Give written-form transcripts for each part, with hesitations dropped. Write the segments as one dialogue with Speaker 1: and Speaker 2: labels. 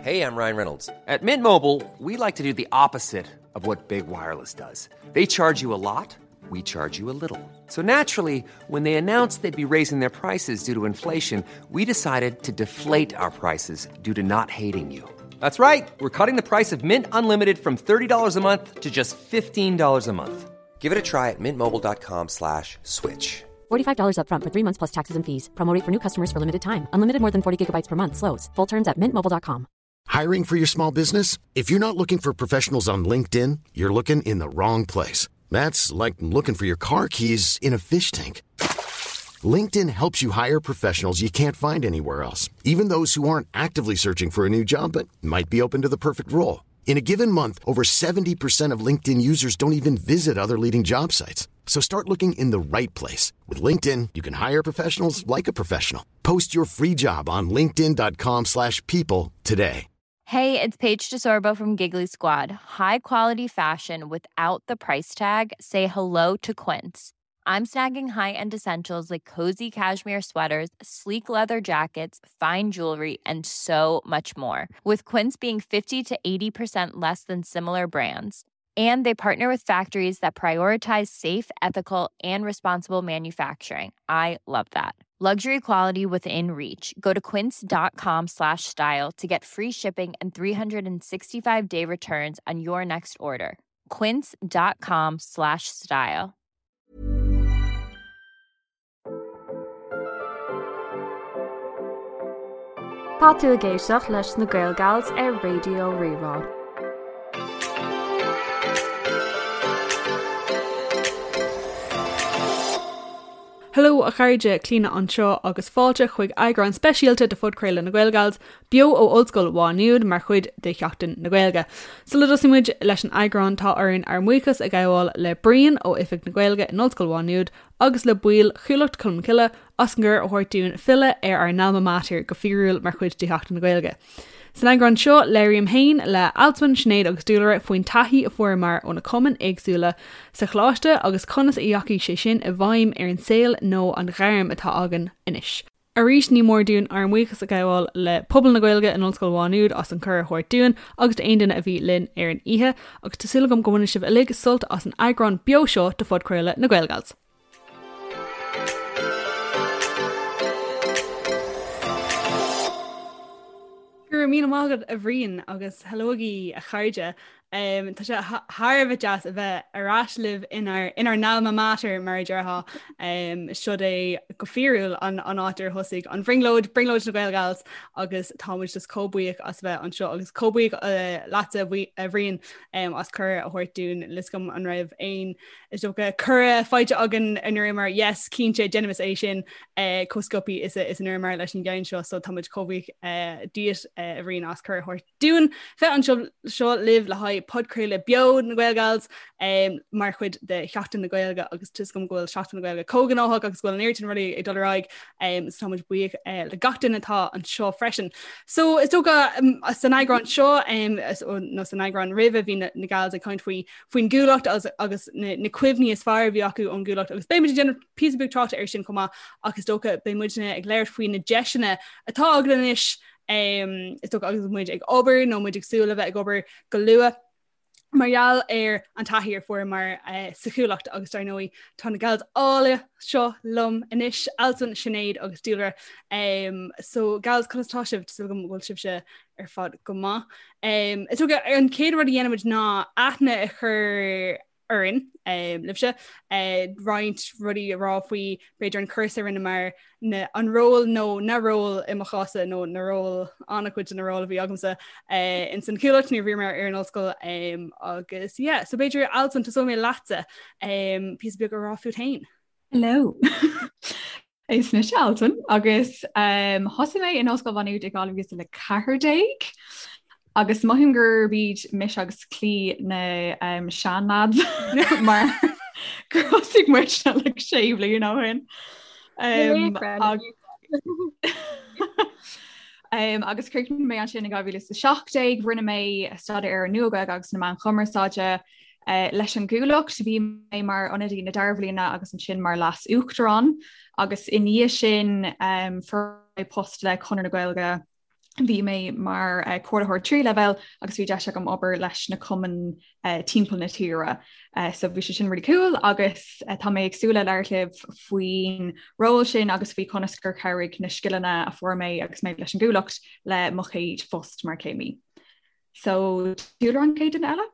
Speaker 1: Hey, I'm Ryan Reynolds. At Mint Mobile, we like to do the opposite of what Big Wireless does. They charge you a lot, we charge you a little. So naturally, when they announced they'd be raising their prices due to inflation, we decided to deflate our prices due to not hating you. That's right. We're cutting the price of Mint Unlimited from $30 a month to just $15 a month. Give it a try at mintmobile.com slash switch.
Speaker 2: $45 upfront for three months plus taxes and fees. Promo rate for new customers for limited time. Unlimited more than 40 gigabytes per month. Slows. Full terms at mintmobile.com.
Speaker 3: Hiring for your small business? If you're not looking for professionals on LinkedIn, you're looking in the wrong place. That's like looking for your car keys in a fish tank. LinkedIn helps you hire professionals you can't find anywhere else, even those who aren't actively searching for a new job but might be open to the perfect role. In a given month, over 70% of LinkedIn users don't even visit other leading job sites. So start looking in the right place. With LinkedIn, you can hire professionals like a professional. Post your free job on linkedin.com slash people today.
Speaker 4: Hey, it's Paige DeSorbo from Giggly Squad. High quality fashion without the price tag. Say hello to Quince. I'm snagging high-end essentials like cozy cashmere sweaters, sleek leather jackets, fine jewelry, and so much more. With Quince being 50 to 80% less than similar brands. And they partner with factories that prioritize safe, ethical, and responsible manufacturing. I love that. Luxury quality within reach. Go to quince.com slash style to get free shipping and 365 day returns on your next order. Quince.com slash style.
Speaker 5: Tá tú ag éisteacht leis na Gaelgals ar Raidió Rí-Rá.
Speaker 6: Hello a chairde, Clíona anseo agus fáilte chuig eagrán speisialta de phodchraoladh na Gaelgals, beo ó Ollscoil Mhá Nuad mar chuid de Sheachtain na Gaeilge. Sula dtosaíonn muid leis an eagrán tá orainn ár mbuíochas a ghabháil le Brian ó Oifig na Gaeilge in Ollscoil Mhá Nuad agus le baill Chuallacht Cholmcille as an gcuireadh a thabhairt dúinn filleadh ar ár n-alma mater go fíorúil mar chuid de Sheachtain na Gaeilge. San eagrán seo, labhraím féin le Alswyn, Sinéad agus Dúlra faoin taithí a fuaireamar ó na cumainn éagsúla sa choláiste agus conas a dheachaigh sé sin i bhfeidhm ar an saol nó an ghairm atá againn anois. Arís, ní mór dúinn ár mbuíochas a ghabháil le pobal na Gaeilge in Ollscoil Mhá Nuad as an cuireadh a thabhairt dúinn agus d'aon duine a bhí linn ar an oíche, agus tá súil agam go mbainfidh sibh uilig sult as an eagrán beo seo de phodchraoladh na Gaelgals. Go raibh míle maith agat a Bhriain agus hello agaibh a chairde. Um, tá sé thar a bheith deas a bheith ar ais libh inár inár n-alma mater mar a déarfá. Um, Siod é go fíorúil an, an áit ar thosaigh an bhrionglóid, brionglóid na Gaelgals agus tá muid just chomh buíoch as bheith anseo agus chomh buíoch uh, leatsa a Bhriain um, as cuireadh a thabhairt dúinn níl a fhios agam an raibh aon Is dócha cuireadh faighte againn a ndúramar yes cinnte déanaimis é sin eh, chomh sciobtha is a is a ndúramar leis an gceann seo so tá muid chomh buíoch eh, díot eh, a Bhriain as cuireadh a thabhairt dúinn bheith anseo seo libh le haghaidh podchraoladh beo na Gaelgals um, mar chuid de Sheachtain na Gaeilge agus tá a fhios agam go bhfuil Seachtain na Gaeilge chomh gnóthach agus go bhfuil an oiread sin rudaí ag dul ar aghaidh um, so tá muid buíoch uh, le gach duine atá anseo freisin. So is dócha um, san eagrán seo um, nó san eagrán roimhe bhí na, na gals ag caint faoi faoin gCuallacht agus na cuimhní is fearr a bhí acu ón gCuallacht agus beidh muid ag déanamh píosa beag tráchta air sin chomh maith ach is dócha beidh muidne ag labhairt faoi na deiseanna atá againn anois is dócha agus muid ag obair nó muid ag súil le bheith ag obair go luath mar gheall ar an taithí a fuaireamar uh, sa Chuallacht agus dar ndóigh tá na gals áille seo liom anois Alswyn, Sinéad agus Dúlra. Um, so gals conas tá sibh súil agam go bhfuil sibhse ar fad go maith. Um, is dócha an chéad rud a dhéanfaimid ná aithne a chur orainn um, libhse uh, roinnt rudaí a rá faoi b'fhéidir an cúrsa a rinneamar na, an ról nó na ról i mo chása nó na ról an-chuid de na ról a bhí agamsa uh, in san Chuallacht nuair a bhíomar ar an ollscoil um, agus yeah, so b'fhéidir Alswyn tosóidh mé leatsa um, píosa beag a rá fút féin.
Speaker 7: Hello. Is mise Alswyn agus um, thosaigh mé in Ollscoil Mhá Nuad i 2014 agus mothaím gurb iad mise agus Clí na um, seanlads mar gur thosaigh muid like sé bliana ó shin. Um, um, agus chríochnaigh mé ansin in 2017, rinne mé staidéar ar an Nua-Ghaeilge agus na Meáin Chumarsáide Leis an gCuallacht, bhí mé mar ionadaí na dara bhliana agus ansin mar leas-uachtarán agus i ndiaidh sin fuair mé post le Conradh na Gaeilge. Bhí mé mar comhairlitheoir tríú leibhéal agus bhí deis agam obair leis na cumainn timpeall na tíre. So bhí sé sin really cool agus tá mé ag súil le labhairt libh faoin ról sin agus faoi conas gur chabhraigh na scileanna a fuair mé agus mé leis an gCuallacht le mo chéad phost mar chéimí. So Dúlra an chéad duine eile?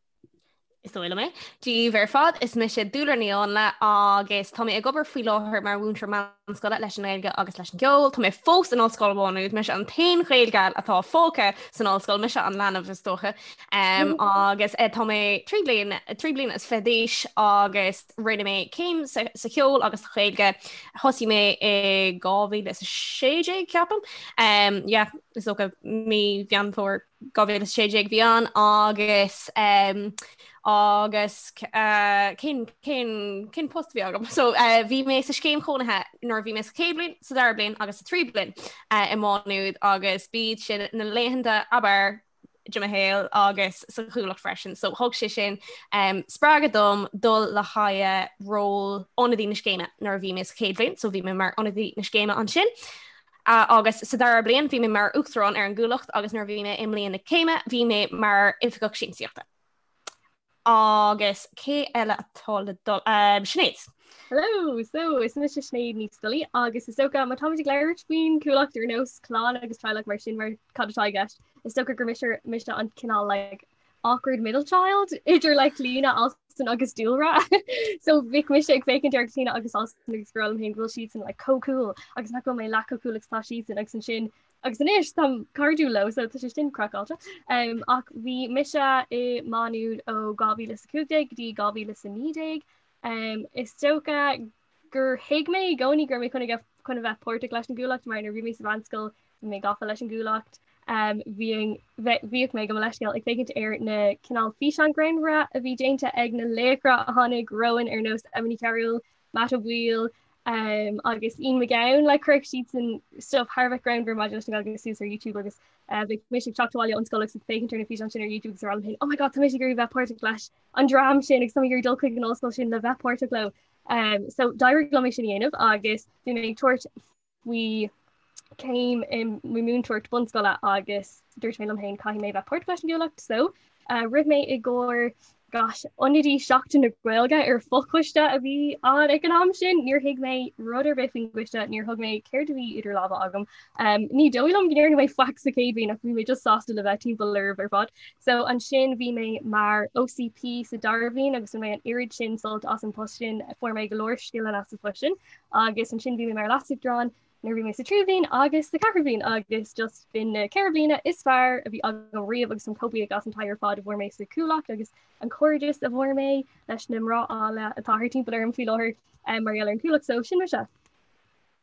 Speaker 8: Is dóigh liom é. Dia daoibh ar fad, is mise Dúlra Ní Áinle agus tá mé ag obair faoi láthair mar mhúinteoir meánscoile leis an nGaeilge agus leis an gceol. Tá mé fós in Ollscoil Mhá Nuad, mise an t-aon Ghaelgal atá fágtha san ollscoil, mise an leanbh is dócha. Um, agus eh, tá mé 3 bliain 3 bliana is 20 d'aois agus rinne mé céim sa, sa cheol agus sa Ghaeilge. Thosaigh mé i 2016 ceapaim. Um, yeah, is dócha mí Mheán Fómhair 2016 bhí ann agus um, agus uh, cén, cén, cén post bhí agam. So uh, bhí mé sa scéim chónaithe nuair bhí mé sa chéad bhliain, sa dara bliain agus sa tríú bliain uh, i Má Nuad agus b'iad sin na laethanta ab fhearr de mo shaol agus sa Chuallacht freisin. So thug sé sin um, spreagadh dom dul le haghaidh ról ionadaí na scéime nuair a bhí mé sa chéad bhliain, so bhí mé mar ionadaí na scéime ansin. Agus sa dara bliain bhí mé mar Uachtarán ar an gCuallacht agus nuair a bhí mé i mbliain na céime bhí mé mar Oifigeach Siamsaíochta. Agus cé eile atá le dul? Sinéad.
Speaker 9: Hello! So, is mise Sinéad Ní Scolaí agus is dócha má táimid ag labhairt faoin Chuallacht ar nós clann agus teaghlach mar sin mar cad atá i gceist, is dócha gur mise mise an cineál like awkward middle child idir like Clíona, Alston agus Dúlra. So bhíodh mise ag féachaint ar Clíona agus Alston agus ag rá liom féin go bhfuil siadsan like chomh cool agus nach bhfuil mé leath chomh cool agus tá siadsan agus ansin agus anois táim cairdiúil leo so tá sé sin craiceáilte. Um, ach bhí mise i Má Nuad ó 2015 go dtí 2019. Um, is dócha gur thuig mé i gcónaí go raibh mé chun a chun a bheith páirteach leis an gCuallacht mar nuair a bhí mé sa mheánscoil bhí mé gafa leis an gCuallacht. Um, bhíodh mé gabh mo leithscéal ag féachaint ar na cineál físeán greannmhara a bhí déanta ag na laochra a tháinig romhainn ar nós Emma Ní Chearúil, Matt Ó Baoill um, agus Ian McGowan like chuirfeadh siadsan stuff thar a bheith greannmhar maidir leis an Ghaeilge suas ar YouTube agus uh, bhí mise ag teacht abhaile ón scoil agus ag féachaint ar na físeáin sin ar YouTube agus ag rá liom féin, oh my god, tá mise ag iarraidh bheith páirteach leis an dream sin agus tá mé ag iarraidh dul chuig an ollscoil sin le bheith páirteach leo. Um, so d'éirigh liom é sin a dhéanamh agus bhí mé ag tabhairt faoi céim i múinteoireacht bunscoile agus dúirt mé liom féin caithfidh mé bheith páirteach leis an gCuallacht so uh, rith mé i gcomhair gosh, ionadaí Seachtain na Gaeilge ar fochoiste a bhí ann ag an am sin, níor thuig mé rud ar bith faoin gcoiste, níor thuig mé céard a bhí idir lámha agam. Um, ní dóigh liom go ndearna mé faic sa chéad bhliain ach bhí mé just sásta le bheith timpeall oraibh ar fad. So ansin bhí mé mar OCP sa dara bhliain agus bhain mé an oiread sin sult as an post sin, fuair mé go leor scileanna as an post sin agus ansin bhí mé mar leasuachtarán nuair bhí mé sa tríú bhliain agus sa ceathrú bhliain agus just b'in na ceithre bliana is fearr a bhí agam riamh agus táim chomh buíoch as an taithí ar fad a bhfuair mé sa Chuallacht agus an cairdeas a bhfuair mé leis na mná áille atá thart timpeall orm faoi láthair um, mar gheall ar an Chuallacht so sin mise.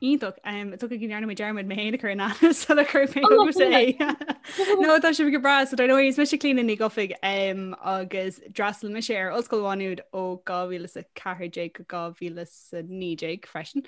Speaker 6: Iontach. Is dócha go ndearna mé dearmad mé féin a chur in aithne sula chuir mé chugatsa é. No tá sibh go breá so dar ndóigh is mise Clíona Ní Dhufaigh agus d'fhreastail mise ar Ollscoil Mhá Nuad ó 2014 go 2019 freisin.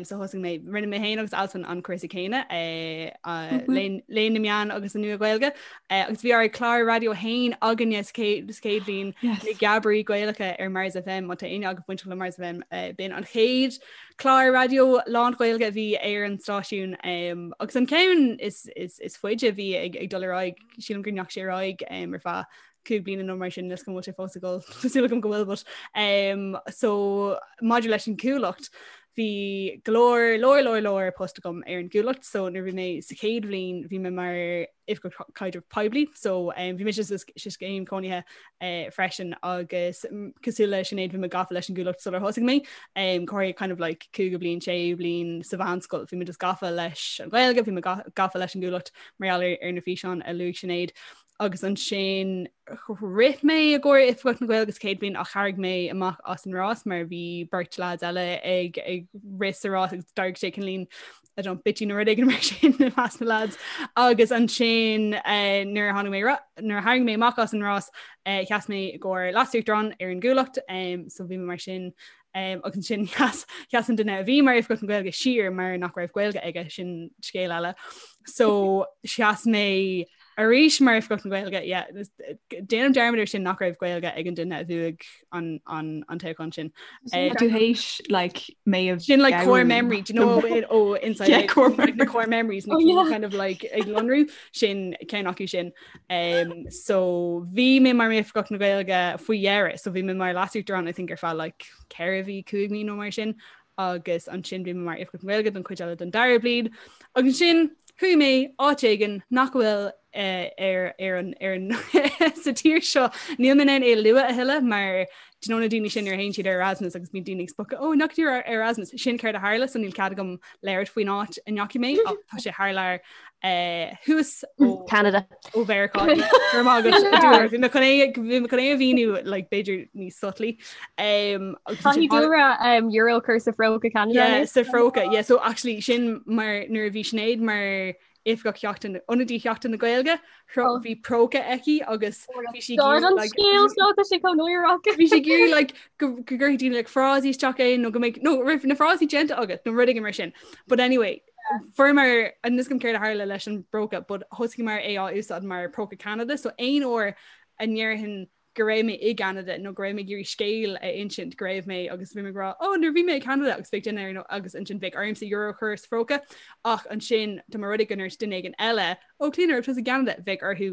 Speaker 6: So thosaigh mé rinne mé féin agus Alswyn an cúrsa céanna eh, Léann na Meán agus an Nua-Ghaeilge eh, agus bhí ár clár raidió féin againne sa chéad bhliain na Geabairí Gaelacha ar Mars FM má tá éinne agaibh bainteach le Mars FM eh, b'in an chéad Clár raidió lán-Ghaeilge a bhí ar an stáisiún um, agus an ceann is, is, is faide a bhí ag, ag dul ar aghaidh sílim go ndeachaigh sé ar aghaidh um, ar feadh cúig bliana nó mar sin is go bhfuil sé fós ag dul tá súil agam go bhfuil but um, so maidir leis an gCuallacht bhí go leor leor leor leor post agam ar an gCuallacht so nuair bhí mé sa chéad bhliain bhí mé mar Oifigeach Caidrimh Poiblí so um, bhí mise sa scéim cónaithe uh, freisin agus mm, cosúil le Sinéad bhí mé gafa leis an gCuallacht sular thosaigh mé um, corradh kind of like cúigiú bliain séú bliain sa mheánscoil bhí mé just gafa leis an Ghaeilge bhí mé gafa leis an gCuallacht mar gheall ar, ar na físeáin a luaigh Sinéad agus ansin rith mé i gcomhair Oifigeach na Gaeilge sa chéad bhliain ach tharraing mé amach as an rás mar bhí beirt lads eile ag ag rith sa rás agus d'éirigh sé cineáilín I don't bitchy nó rud éigin mar sin i measc na lads agus ansin eh, nuair a tháinig mé nuair a tharraing mé amach as an rás eh, sheas mé i gcomhair leasuachtarán ar an gCuallacht um, so bhí mé mar sin um, agus ansin sheas sheas an duine a bhí mar Oifigeach na Gaeilge siar mar nach raibh Gaeilge aige sin scéal eile so sheas mé. Arís mar Oifigeach na Gaeilge, yeah, déanaim dearmad ar sin nach raibh Gaeilge ag an duine a bhuaigh an, an, an toghchán sin.
Speaker 7: Eh, tú théis like mé
Speaker 6: a Sin like core memory, do you know it, oh, inside
Speaker 7: yeah, core
Speaker 6: like, the core memories na oh, yeah. kind of like ag lonrú sin ceann acu sin. Um, so bhí mé mar Oifigeach na Gaeilge faoi dheireadh, so bhí mé mar leasuachtarán I think ar feadh like 4 mhí 5 mí nó mar sin agus ansin bhí mé mar Oifigeach na Gaeilge don chuid eile den dara bliain. Agus ansin chuaigh mé áit éigin nach bhfuil eh, ar ar an ar an sa tír seo níl mé in ann é a lua a thuilleadh mar do you know na daoine sin ar théann siad ar Erasmus agus bíonn daoine ag spochadh ó nach dtír ar Erasmus sin céard a tharla so níl cead agam labhairt faoin áit a ndeachaigh mé ach tá sé thar lear eh, thuas
Speaker 8: ó Canada.
Speaker 6: ó Mheiriceá Go raibh maith agat, Dúlra. Bhí mé chun é bhí mé chun é a mhíniú like, b'fhéidir níos subtly. Um,
Speaker 9: agus Caithfidh Dúlra um, euro a chur sa phróca Canada.
Speaker 6: Yeah, sa phróca. Yeah, so actually sin mar nuair a bhí Sinéad mar oifigeach Sheachtain ionadaí Sheachtain na Gaeilge oh. bhí próca aici agus
Speaker 9: bhí sí scéal seo tá sé chomh náireach.
Speaker 6: Bhí sí ag iarraidh like, go go gcuirfidh daoine like, frásaí isteach é nó go mbeidh nó raibh na frásaí déanta agat nó rud éigin mar sin. But anyway, Fuaireamar níl a fhios agam céard a tharla leis an bpróca, but thosaíomar é á úsáid mar próca Canada, so aon uair a ndéarfainn go raibh mé i gCanada nó go raibh mé ag iarraidh scéal a insint go raibh mé agus bhí mé ag rá oh nuair bhí mé i Canada agus bheadh duine ar agus ansin bheadh ormsa euro a chur sa phróca ach ansin dá mba rud é go ndúirt duine éigin eile ó Clíona raibh tusa i gCanada bheadh orthu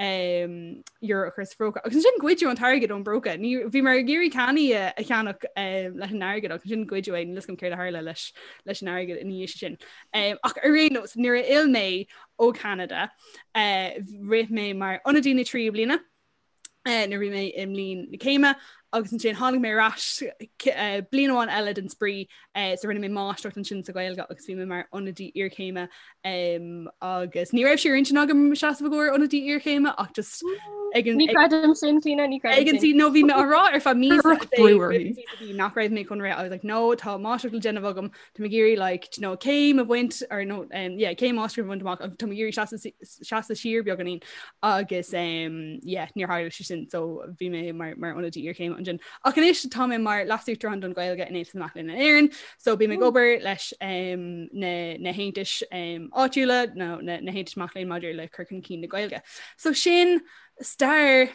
Speaker 6: um, euro a chur sa phróca. Agus ansin goideadh an t-airgead ón bpróca. Ní bhíomar ag iarraidh cannaí a, a cheannach um, leis an airgead agus ansin goideadh é níl a fhios agam céard a tharla leis leis an airgead ina dhiaidh sin. Um, ach ar aon nós nuair a fhill mé ó Canada uh, rith mé mar ionadaí na tríú bliana uh, nuair bhí mé i mbliain na céime agus ansin tháinig mé ar ais uh, bliain amháin eile den spraoi uh, so rinne mé máistreacht ansin sa Ghaeilge agus bhí mé mar ionadaí iarchéime um, agus ní raibh sé ar intinn agam seasamh i gcomhair ionadaí iarchéime ach just
Speaker 9: ag an Ní creidim sin Clíona ní
Speaker 6: creidim ag an no bhí mé á rá ar feadh mí nach raibh mé chun rith I was like no tá máistreacht le déanamh agam Tá mé ag iarraidh like you know céim a bhaint or no um, yeah, céim máistreacht a bhaint amach agus tá mé ag iarraidh seasamh seasamh siar beagáinín agus um, yeah, níor tharla sé sin so bhí mé mar, mar ionadaí iarchéime ansin. Ach anois tá mé mar leasuachtarán don Ghaeilge in Aontas na Mac Léinn in Éirinn, so bím ag obair leis um, na, na haontais um, áitiúla nó na, na haontais mac léinn maidir le cur chun cinn na Gaeilge. So sin stair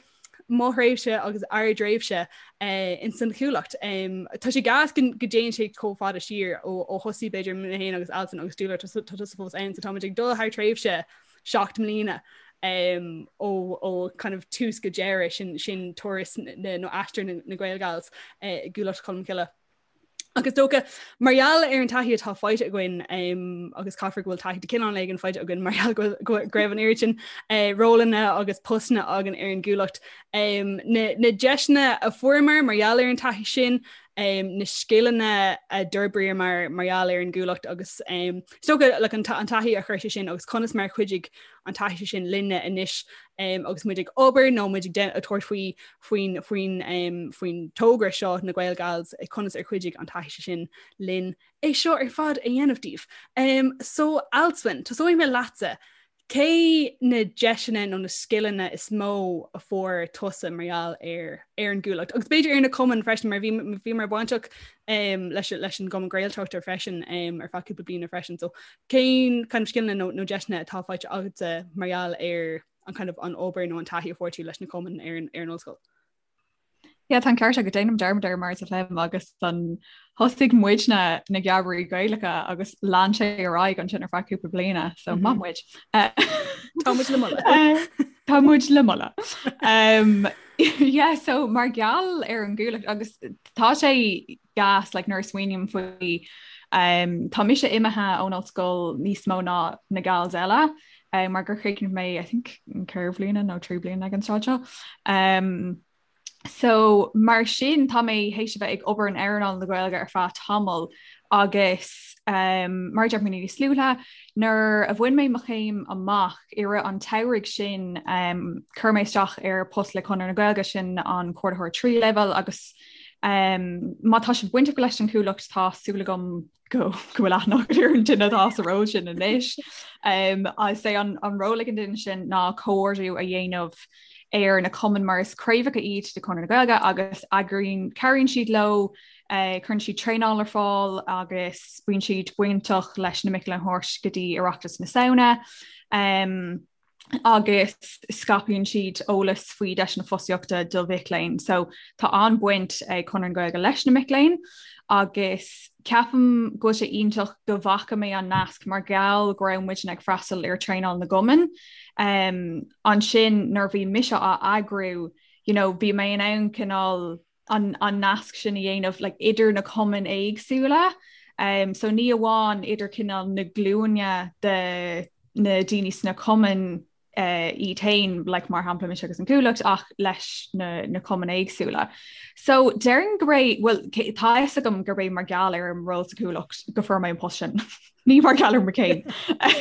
Speaker 6: mo thréimhse agus ár dtréimhse in san Chuallacht. Tá sé gas go dtéann sé chomh fada siar ó thosaigh b'fhéidir mé féin agus Alison agus Dúlra tá tusa fós ann so táimid ag dul thar tréimhse 7 mbliana ó kind of tús go deireadh sin sin turas nó aistear na Gaelgals i gCuallacht Cholmcille. Agus dócha, mar gheall ar an taithí atá faighte againn agus caithfear go bhfuil taithí de chineál éigin faighte againn mar gheall go raibh an oiread sin eh, rólanna agus postanna againn ar an gCuallacht. Na, na deiseanna a fuaireamar mar gheall ar an taithí sin, na scileanna a d'fhorbraíomar mar gheall ar an gCuallacht agus is dócha like, an, an taithí a chuir sé sin agus conas mar chuidigh an taithí sin linne anois agus muid ag obair nó muid ag tabhairt faoi faoin faoin faoin togra seo na Gaelgals conas ar chuidigh an taithí sin linn é seo ar fad a dhéanamh daoibh. Um, so Alswyn, tosóidh mé leatsa. Cé na deiseanna nó na scileanna is mó a fuair tusa mar gheall ar ar an gCuallacht? Agus b'fhéidir ar na cumainn freisin mar bhí bhíomar bainteach um, leis, leis an gCumann Gaeltachta freisin um, ar feadh cúpla bliana freisin. So cén kind of scileanna nó, nó deiseanna atá faighte agatsa mar gheall ar an kind of an obair nó an taithí a fuair tú leis na cumainn ar an, ar an ollscoil?
Speaker 7: Yeah, tá an ceart agat déanaim dearmad air mar is léim agus an thosaigh muidne na Geamairí Gaelacha agus lean sé ar aghaidh ansin ar feadh cúpla bliana, so mm -hmm. maith muid.
Speaker 6: Tá muid le moladh.
Speaker 7: Tá muid le moladh. Um, yeah, so mar gheall ar an gCuallacht agus tá sé gas like, nuair a smaoiním faoi um, tá mise imithe ón ollscoil níos mó ná na gals eile um, mar gur chríochnaigh mé I think 4 bliana nó 3 bliana ag an tráth seo. Um, so mar sin tá mé théis a bheith ag obair in earnáil na Gaeilge ar feadh tamall agus um, mar deir mé níos luaithe nuair a bhain mé mo chéim amach i rith an tsamhraidh sin um, chuir mé isteach ar post le Conradh na Gaeilge sin an comhordaitheoir tríú leibhéal agus Um, má tá sibh bainteach leis an Chuallacht tá súil agam go go bhfuil aithne agat ar an duine atá sa ról sin anois. Um, is é an, an ról ag an duine sin ná comhordú a dhéanamh ar na cumainn mar is craobhacha iad de Chonradh na Gaeilge agus eagraíonn cabhraíonn siad leo, uh, cuireann siad traenáil ar fáil agus bíonn siad bainteach leis na mic léinn a thabhairt go dtí Oireachtas na Samhna. Um, Agus scaipeann siad eolas faoi deiseanna fostaíochta do mhic léinn. So tá an-bhaint ag Conradh na Gaeilge leis na mic léinn agus ceapaim go bhfuil sé iontach go bhfaca mé an nasc mar gheall go raibh muidne ag freastal ar traenáil na gcumann. Um, ansin nuair bhí mise á eagrú, you know, bhí mé in ann cineál an, an nasc sin a dhéanamh like, idir na cumainn éagsúla. Um, so ní amháin idir cineál na glúine de na daoine sna cumainn uh, iad féin, like, mar shampla mise agus an Cuallacht ach leis na, na cumainn éagsúla. So déarfainn gurb é well, tá fhios agam gurb é mar gheall ar an ról sa Chuallacht go fuair mé an post sin. Ní mar gheall ar mo chéim.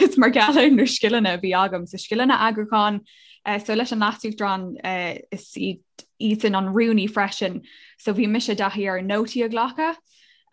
Speaker 7: Is mar gheall ar na scileanna a bhí agam so scileanna eagrúcháin, uh, so leis an leasuachtarán uh, is iad iadsan an rúnaí freisin so bhí mise i dtaithí ar nótaí a ghlacadh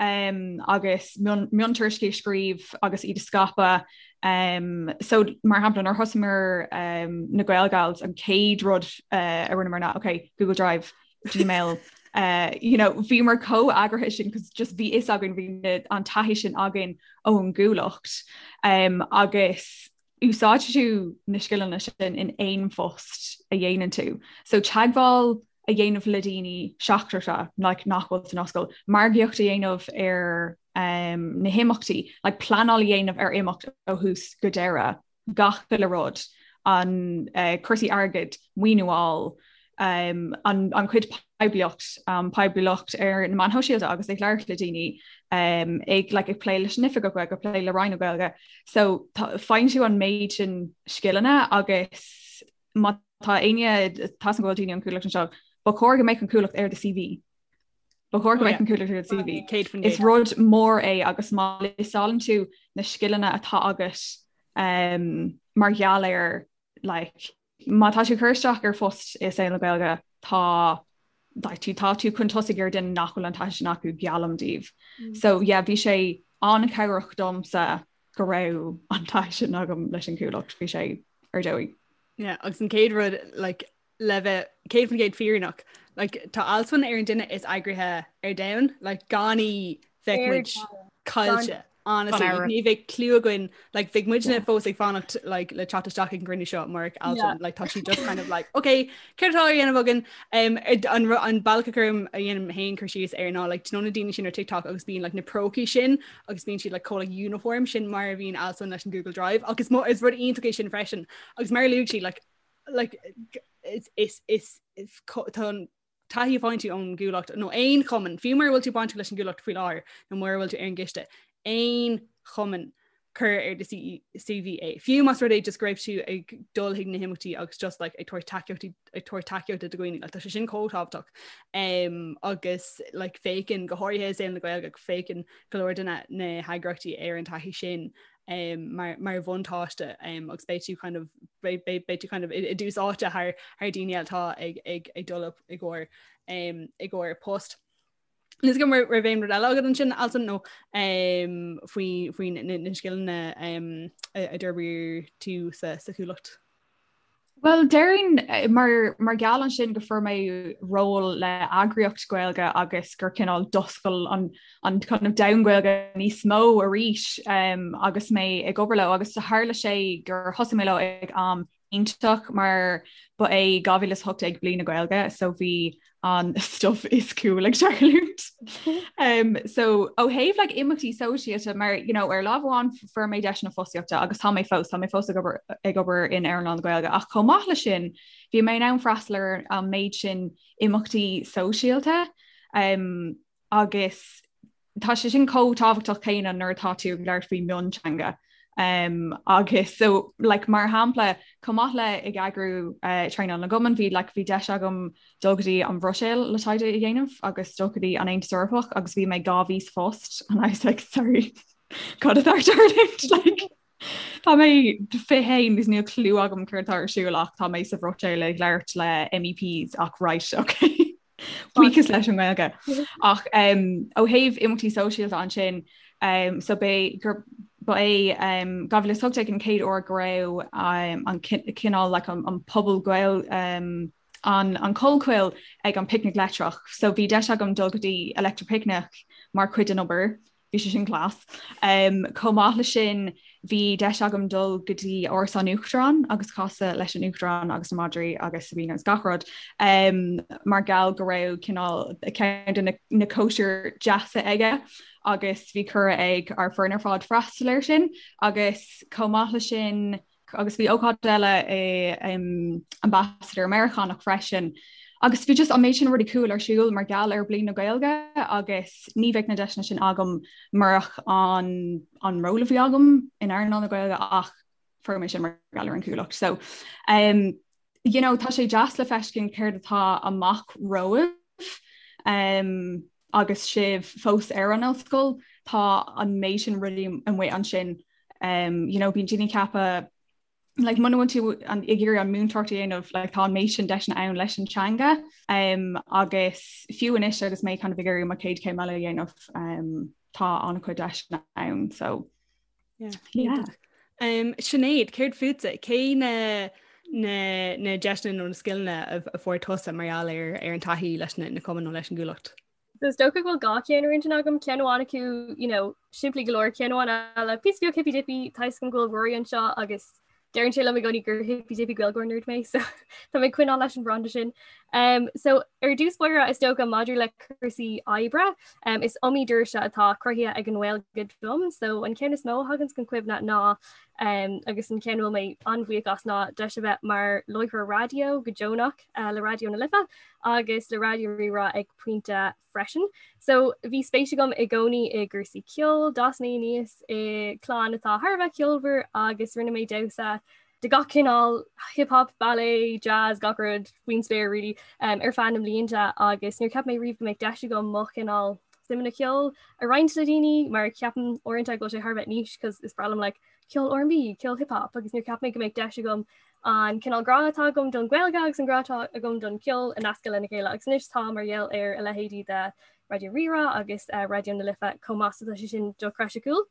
Speaker 7: um, agus miontuairiscí a scríobh agus iad a scaipeadh. Um, so mar shampla nuair thosaíomar um, na Gaelgals an chéad rud uh, a rinneamar ná okay, Google Drive, Gmail, uh, you know, bhíomar chomh eagraithe sin cos just bhí fhios againn bhí an taithí sin againn ón gCuallacht um, agus úsáidfidh tú na scileanna sin in aon phost a dhéanann tú. So teagmháil a dhéanamh le daoine seachtracha like, nach bhfuil san ollscoil, margaíocht a dhéanamh ar um, na himeachtaí, like, pleanáil a dhéanamh ar imeacht ó thús go deireadh, gach uile rud, an uh, cúrsaí airgid, maoiniú a fháil, um, an, an chuid poiblíocht, um, poiblíocht ar na meáin shóisialta agus ag labhairt le daoine um, ag, like, ag plé leis an Oifigeach Gaeilge, ag plé le Roinn na Gaeilge. So faigheann tú an méid sin scileanna agus má tá éinne tá go bhfuil daoine ón Chuallacht anseo, ba chóir go mbeadh an Cuallacht ar do CV. Ba chóir go mbeadh an Cuallacht ar do CV. Is rud mór é agus má liostálann tú na scileanna atá agat um, mar gheall ar like, Má tá tú ag cur isteach ar phost i saol na Gaeilge tá like, tú tá tú chun tosaigh ar duine nach bhfuil an taithí sin acu geallaim daoibh. Mm. So yeah, bhí sé an-chabhrach domsa go raibh an taithí sin agam leis an Chuallacht, bhí sé ar dóigh.
Speaker 6: Yeah, agus an chéad rud like, le bheith 100% fírinneach, like, tá Alswyn ar an duine is eagraithe ar domhan, like, gan í bheadh muid caillte. Honestly, like, ní bheadh clue againn like, bheadh muidne fós ag fanacht like, le teacht isteach ag an gcruinniú seo murach Alswyn like, tá sí just kind of like okay céard atá á dhéanamh againn um, an, an bealach a chuirim a dhéanaim féin cur síos air ná like, do you know na daoine sin ar TikTok agus bíonn like, na prócaí sin agus bíonn siad like, chomh like, uniform sin mar a bhíonn Alswyn leis an Google Drive agus mo is rud iontach é sin freisin agus mar a luaigh sí like, like, is, is, is, is, tá an taithí a fhaigheann tú ón gCuallacht nó aon chumann, fiú mura bhfuil tú bainteach leis an gCuallacht faoi láthair nó mura bhfuil tú ar an gciste, aon chumann cuir ar do CV é. Fiú más rud é just go raibh tú ag dul chuig na himeachtaí agus just like, ag tabhairt tacaíochtaí ag tabhairt tacaíochta do dhaoine, like, tá sé sin chomh tábhachtach. Um, agus like, féachann go háirithe i saol na Gaeilge féachann go leor de na, na heagraíochtaí ar an taithí sin um, mar, mar bhuntáiste um, agus beidh tú kind of, beidh, beidh, beidh tú kind of i, i dtús áite thar, thar daoine eile atá ag, ag, ag dul up i gcomhair um, i gcomhair post. Níl a fhios agam an raibh aon rud eile agat ansin Alswyn nó um, faoi, faoi na, na scileanna um, a, a d'fhorbair tú sa, sa Chuallacht.
Speaker 7: Bhuel, déarfainn mar mar gheall ansin go fuair mé ról le eagraíocht Gaeilge agus gur cineál d'oscail an an kind of domhan Gaeilge níos mó arís um, agus mé ag obair leo agus tharla sé gur thosaigh mé leo ag am iontach mar ba é 2018 bliain na Gaeilge so bhí an stuff is cool ag tarlúint. Um, so ó thaobh like, imeachtaí sóisialta mar you know, ar lámh amháin fuair mé deiseanna fostaíochta agus tá mé fós tá mé fós ag obair ag obair in earnáil na Gaeilge ach chomh maith leis sin bhí mé in ann freastal ar an méid sin imeachtaí sóisialta um, agus tá sé sin chomh tábhachtach céanna nuair atá tú ag labhairt faoi mionteanga. Um, agus so like, mar shampla chomh maith le ag eagrú uh, traenáil na gcumann bhí like, bhí deis agam dul go dtí an Bhruiséil le taighde a dhéanamh agus dul go dtí an Aontas Eorpach agus bhí mé 2 mhí sa phost and I was like sorry cad atá ag tarlúint like Tá mé 21 agus níl clue agam céard atá ar siúl ach tá mé sa Bhruiséil ag labhairt le MEPs ach right okay. Buíochas leis an nGaeilge. Ach um, ó thaobh imeachtaí sóisialta ansin um, so b'é gur ba é um, 2018 an chéad uair go raibh um, an cineál like, an, an pobal Gael um, an, an Collchoill ag an Picnic Leictreach. So bhí deis agam dul go dtí Electric Picnic mar chuid den obair. Bhí sé sin class. Um, chomh maith le sin bhí deis agam dul go dtí Áras an Uachtaráin agus casadh leis an Uachtarán agus na madraí agus Sabina agus gach rud um, mar gheall go raibh cineál ceann de na, na cóisir deasa aige agus bhí cuireadh ag ár foireann ar fad freastal air sin agus chomh maith le sin agus bhí ócáid eile i um, Ambassador Meiriceánach freisin. Agus bhí just an méid sin rudaí cool ar siúl mar gheall ar Bliain na Gaeilge agus ní bheadh na deiseanna sin agam murach an, an ról a bhí agam in earnáil na Gaeilge ach fuair mé sin mar gheall ar an Chuallacht. So um, you know, tá sé deas le feiscint céard atá amach romhaibh um, agus sibh fós ar an ollscoil, tá an méid sin rudaí amuigh ansin um, you know, bíonn daoine ag ceapadh like, muna bhfuil tú an, ag iarraidh an múinteoireacht a dhéanamh like, tá an méid sin deiseanna ann leis an teanga um, agus fiú anois agus mé kind of ag iarraidh mo chéad chéim eile a dhéanamh um, tá an-chuid deiseanna ann so
Speaker 6: yeah. Yeah. Um, Sinéad, céard fútsa? Cé na na, na deiseanna nó na scileanna a, a fuair tusa mar gheall ar, ar an taithí leis na, na cumainn nó leis an gCuallacht?
Speaker 9: So is dócha go bhfuil dhá cheann ar intinn agam, ceann amháin acu, you know, simplí go leor, ceann amháin eile, píosa beag hippy dippy, tá a fhios agam go bhfuil Rory anseo agus deireann sé liom i gcónaí gur hippy dippy Gaeilgeoir nerd mé, so tá mé ag coinneáil leis an branda sin. Um, so ar dtús báire is dócha maidir le cúrsaí oibre, um, is iomaí doirse atá cruthaithe ag an nGaeilge dom, so an ceann is mó a thagann chun cuimhne ná um, agus an ceann a bhfuil mé an-bhuíoch as ná deis a bheith mar láithreoir raidió go deonach uh, le Raidió na Life agus le Raidió Rí-Rá ag pointe freisin. So bhí spéis agam i gcónaí i gcúrsaí ceoil, d'fhás mé aníos i gclann atá thar a bheith ceolmhar agus rinne mé damhsa de gach cineál, hip hop, ballet, jazz, gach rud faoin spéir really, um, ar feadh na mblianta agus níor cheap mé riamh go mbeadh deis agam mo chineál suimeanna ceoil a roinnt le daoine mar ceapaim uaireanta go bhfuil sé thar a bheith niche cos is breá liom like, ceol R&B, ceol hip hop agus níor cheap mé go mbeadh deis agam an cineál grá atá agam don Ghaeilge agus an grá atá agam don cheol a nascadh lena chéile agus anois tá mar gheall ar a leithéidí de Raidió Rí-Rá agus uh, Raidió na Life chomh maith so tá sé sin dochreidte cool.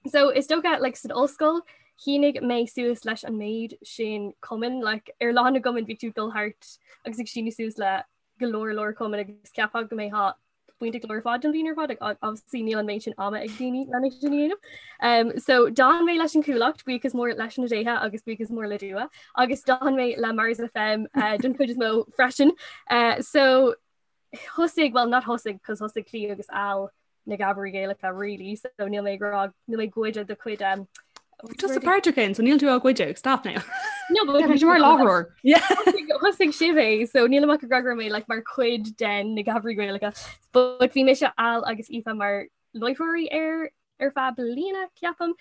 Speaker 9: So is dócha like, san ollscoil shínigh mé suas leis an méid sin cumann like, ar lá na gcumann bhí tú dul thart agus ag síniú suas le go leor leor cumann agus cheapfá go mbeifeá bainteach leo ar fad don bhliain ar fad ach obviously níl an méid sin ama ag daoine lena sin a dhéanamh. Um, so d'fhan mé leis an Chuallacht buíochas mór leis na déithe agus buíochas mór le Dua agus d'fhan mé le Mars FM uh, don chuid is mó freisin. Uh, so thosaigh well not thosaigh cos thosaigh Clí agus Al na Gabairí Gaelacha really so níl mé ag rá níl mé ag goid do chuid um,
Speaker 6: Just a páirteach ann, so níl tú á ghoid, stop now.
Speaker 9: No, but
Speaker 7: Bhí mar láithreoir.
Speaker 9: Thosaigh sibh é, so níl mé ag rá go raibh mé like, mar chuid den na Gabairí Gaelacha. But bhí mise Al agus Aoife mar láithreoirí ar ar feadh bliana ceapaim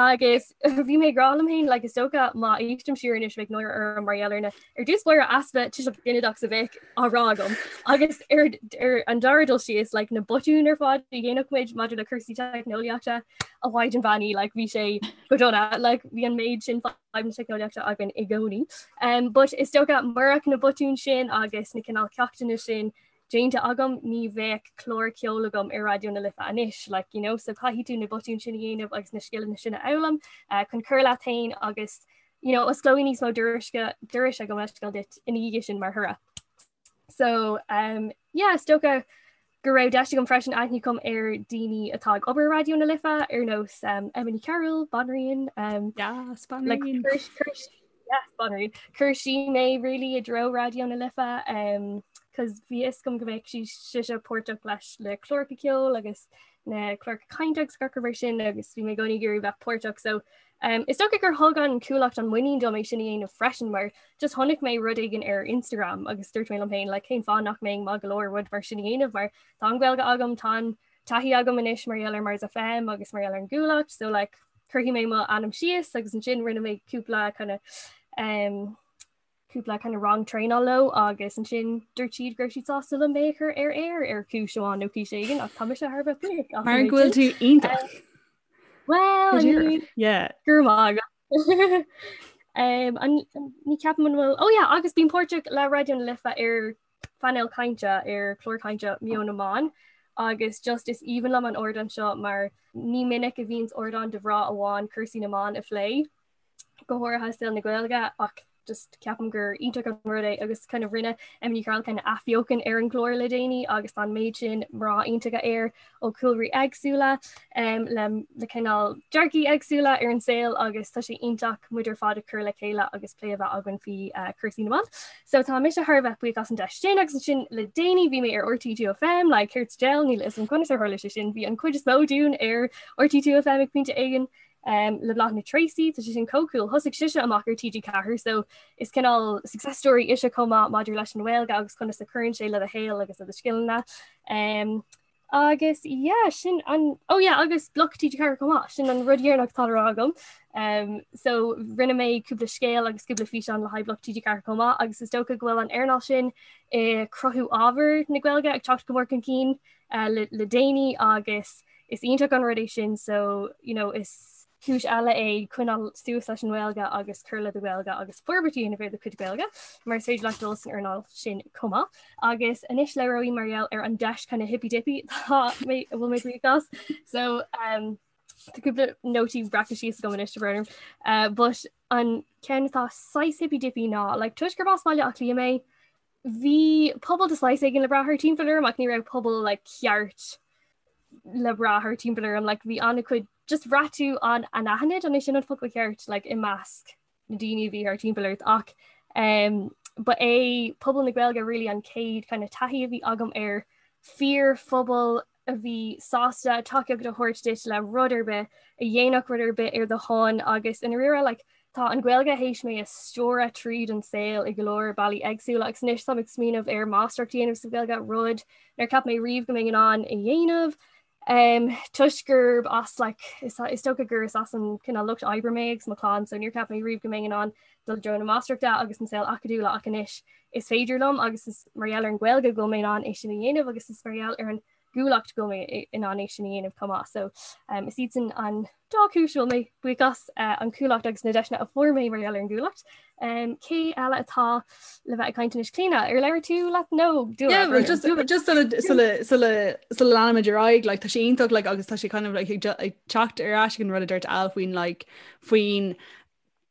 Speaker 9: agus bhí mé ag rá liom féin like, is dócha má éistim siar anois bheadh náire orm mar gheall ar na ar dtús báire easpa tuiseal ginideach a bheadh á rá agam agus ar ar an dara dul síos like, na botúin ar fad a dhéanadh muid maidir le cúrsaí teicneolaíochta a mhaighdean bheannaithe like, bhí sé go dona like, bhí an méid sin fadhb na teicneolaíochta againn i gcónaí. Um, but is dócha murach na botúin sin agus na cineál ceachtanna sin déanta agam ní bheadh clár ceoil agam ar Raidió na Life anois like, you know, so caithfidh tú na botúin sin a dhéanamh agus na scileanna sin a fhoghlaim uh, chun cur leat féin agus you know, osclóidh níos mó dorais gabh mo leithscéal duit ina dhiaidh sin mar thoradh. So um, yeah, is dócha go raibh deis agam freisin aithne a chur ar daoine atá ag obair Raidió na Life ar nós um, Emma Ní Chearúil, Banríon um,
Speaker 6: yes, Banríon.
Speaker 9: Like, yes, Banríon. Chuir sí mé really i dtreo Raidió na Life um, cos bhí a fhios agam go mbeadh sí sise páirteach leis le cláracha ceoil agus na cláracha cainte agus gach rud mar sin agus bhí mé i gcónaí ag iarraidh bheith páirteach so Um, is dócha gur thug an Cuallacht an muinín dom é sin a dhéanamh freisin mar just chonaic mé rud éigin ar Instagram agus dúirt mé liom féin like, cén fáth nach mbeinn maith go leor rud mar sin a dhéanamh mar tá an Ghaeilge agam tá an taithí agam anois mar gheall ar Mars FM agus mar gheall ar an gCuallacht so like, cuirfidh mé mo ainm síos agus ansin rinne mé cúpla kind of, um, cúpla kind of rang traenála leo agus ansin dúirt siad go raibh siad sásta liom mé a chur ar aer ar chúis amháin nó cúis éigin ach tá mise thar a bheith buíoch
Speaker 6: as Mar go bhfuil tú iontach.
Speaker 9: Well, I mean,
Speaker 6: Yeah.
Speaker 9: go raibh maith agat. Um, an, ní ceapaim an bhfuil oh yeah, agus bím páirteach le Raidió na Life ar phainéal cainte ar chlár cainte Meon na mBan agus just is aoibhinn liom an ardán seo mar ní minic a bhíonns ardán do mhná amháin cúrsaí na mban a phlé. go háirithe saol na Gaeilge ach just ceapaim gur iontach an rud é agus kind of rinne Emma Ní Chearúil kind of athbheochan ar an gclár le déanaí agus tá an méid sin mná iontacha air ó chúlraí éagsúla um, le, le cineál dearcaí éagsúla ar an saol agus tá sé iontach muid ar fad a chur le chéile agus plé a bheith againn faoi uh, cúrsaí na mban. So tá mise thar a bheith buíoch as an deis sin agus ansin le déanaí bhí mé ar RTÉ 2FM like céard sa diabhal níl a fhios agam conas ar tharla sé sin bhí an chuid is mó dúinn ar RTÉ 2FM ag pointe éigin um, le Bláthnaid Treacy, tá sé sin chomh cool. Thosaigh sise amach ar TG4 so is cineál success story ise chomh maith maidir leis an Ghaeilge agus conas a chuireann sé le do shaol agus le do scileanna. Um, agus yeah, sin an oh yeah, agus Bloc TG4 chomh maith sin an rud deireanach atá le rá agam. Um, so rinne mé cúpla scéal agus cúpla físeán le haghaidh Bloc TG4 chomh maith agus is dócha go bhfuil an earnáil sin i cruthú ábhar na Gaeilge ag teacht go mór chun cinn uh, le, le déanaí agus is iontach an rud é sin so you know, is cúis eile é coinneáil suas leis an nGaeilge agus cur le do Ghaeilge agus forbairt a dhéanamh ar do chuid Gaeilge mar is féidir leat dul san earnáil sin chomh maith. Agus anois labhróidh mar gheall ar an deis kind of hippy dippy tá mé a bhfuil mé buíoch as. So um, tá cúpla nótaí breactha síos agam anois brón orm. Uh, but an ceann atá saghas hippy dippy ná like, toisc gurb as Baile Átha Cliath mé, Bhí pobal de shaghas éigin le brath thart timpeall orm ach ní raibh pobal like, ceart le brath thart timpeall orm like, bhí an-chuid just bhraith tú an anaithnid an é sin an focal ceart like, i measc na daoine a bhí thart timpeall ort ach um, ba é pobal na Gaeilge really an chéad kind of taithí a bhí agam ar fíorphobal a bhí sásta tacaíocht a thabhairt duit le rud ar bith, a dhéanfadh rud ar bith ar do shon agus i ndáiríre like, tá an Ghaeilge théis mé a stiúradh tríd an saol i go leor bealaí éagsúla agus anois táim ag smaoineamh ar máistreacht a dhéanamh sa Ghaeilge, rud nár cheap mé riamh go mbeinn in ann a dhéanamh. Um, toisc gurb as like, is, is dócha gur is as an cineál lucht oibre mé agus mo chlann, so níor cheap mé riamh go mbeinn in ann dul i dtreo na máistreachta agus an saol acadúla ach anois is féidir liom agus is mar gheall ar an Ghaeilge go bhfuil mé in ann é sin a dhéanamh agus is mar gheall ar an gCuallacht go bhfuil mé in ann é sin a dhéanamh chomh maith. So um, is iad sin an dá chúis a bhfuil mé buíoch as uh, an Chuallacht agus na deiseanna a fuair mé mar gheall ar an gCuallacht. Um, cé eile atá le bheith ag caint anois Clíona ar labhair tú leat nó
Speaker 6: dú Yeah, well, just just sula sula sula sula leanaimid ar aghaidh like, tá sé iontach like, agus tá sé kind of like, ag ag teacht ar ais ag an rud a dúirt Al faoin like, faoin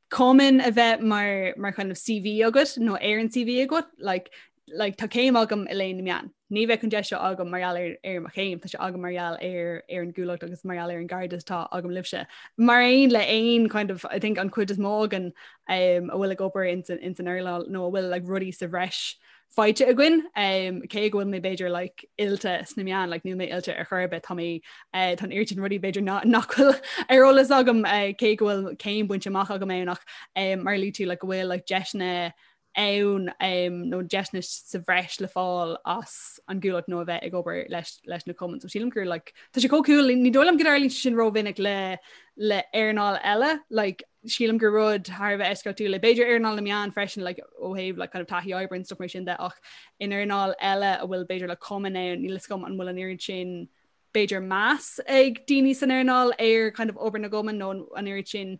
Speaker 6: cumann a bheith mar mar kind of CV agat nó ar an CV agat like, like, tá céim agam i léann na meán. Ní bheadh an deis seo agam mar gheall ar ar mo chéim, tá sé agam mar gheall ar ar an gCuallacht agus mar gheall ar an gcairdeas atá agam libhse. Mar aon le aon kind of I think an chuid is mó againn um, a bhfuil ag obair ins an ins an earnáil nó a bhfuil like, rudaí sa bhreis faighte againn um, cé go bhfuil mé b'fhéidir like, oilte sna meáin like, níl mé oilte ar chor ar bith tá mé uh, tá an oiread sin rudaí b'fhéidir nach bhfuil ar eolas agam uh, cé go bhfuil céim bainte amach agam ann ach um, mar a luaigh tú like, go bhfuil like, deiseanna ann um, nó deiseanna sa bhreis le fáil as an gCuallacht nó a bheith ag obair leis, leis na cumainn. So sílim gur like, tá sé chomh cool ní dóigh liom go dtarlaíonn sin rómhinic le le earnáil eile like, sílim gur rud thar a bheith eisceachtúil é. B'fhéidir earnáil na meán freisin like, ó thaobh like, kind of taithí oibre and stuff mar sin de ach in earnáil eile a bhfuil b'fhéidir le cumann ann níl a fhios agam an bhfuil an oiread sin b'fhéidir meas ag daoine san earnáil ar kind of obair na gcumann nó an oiread sin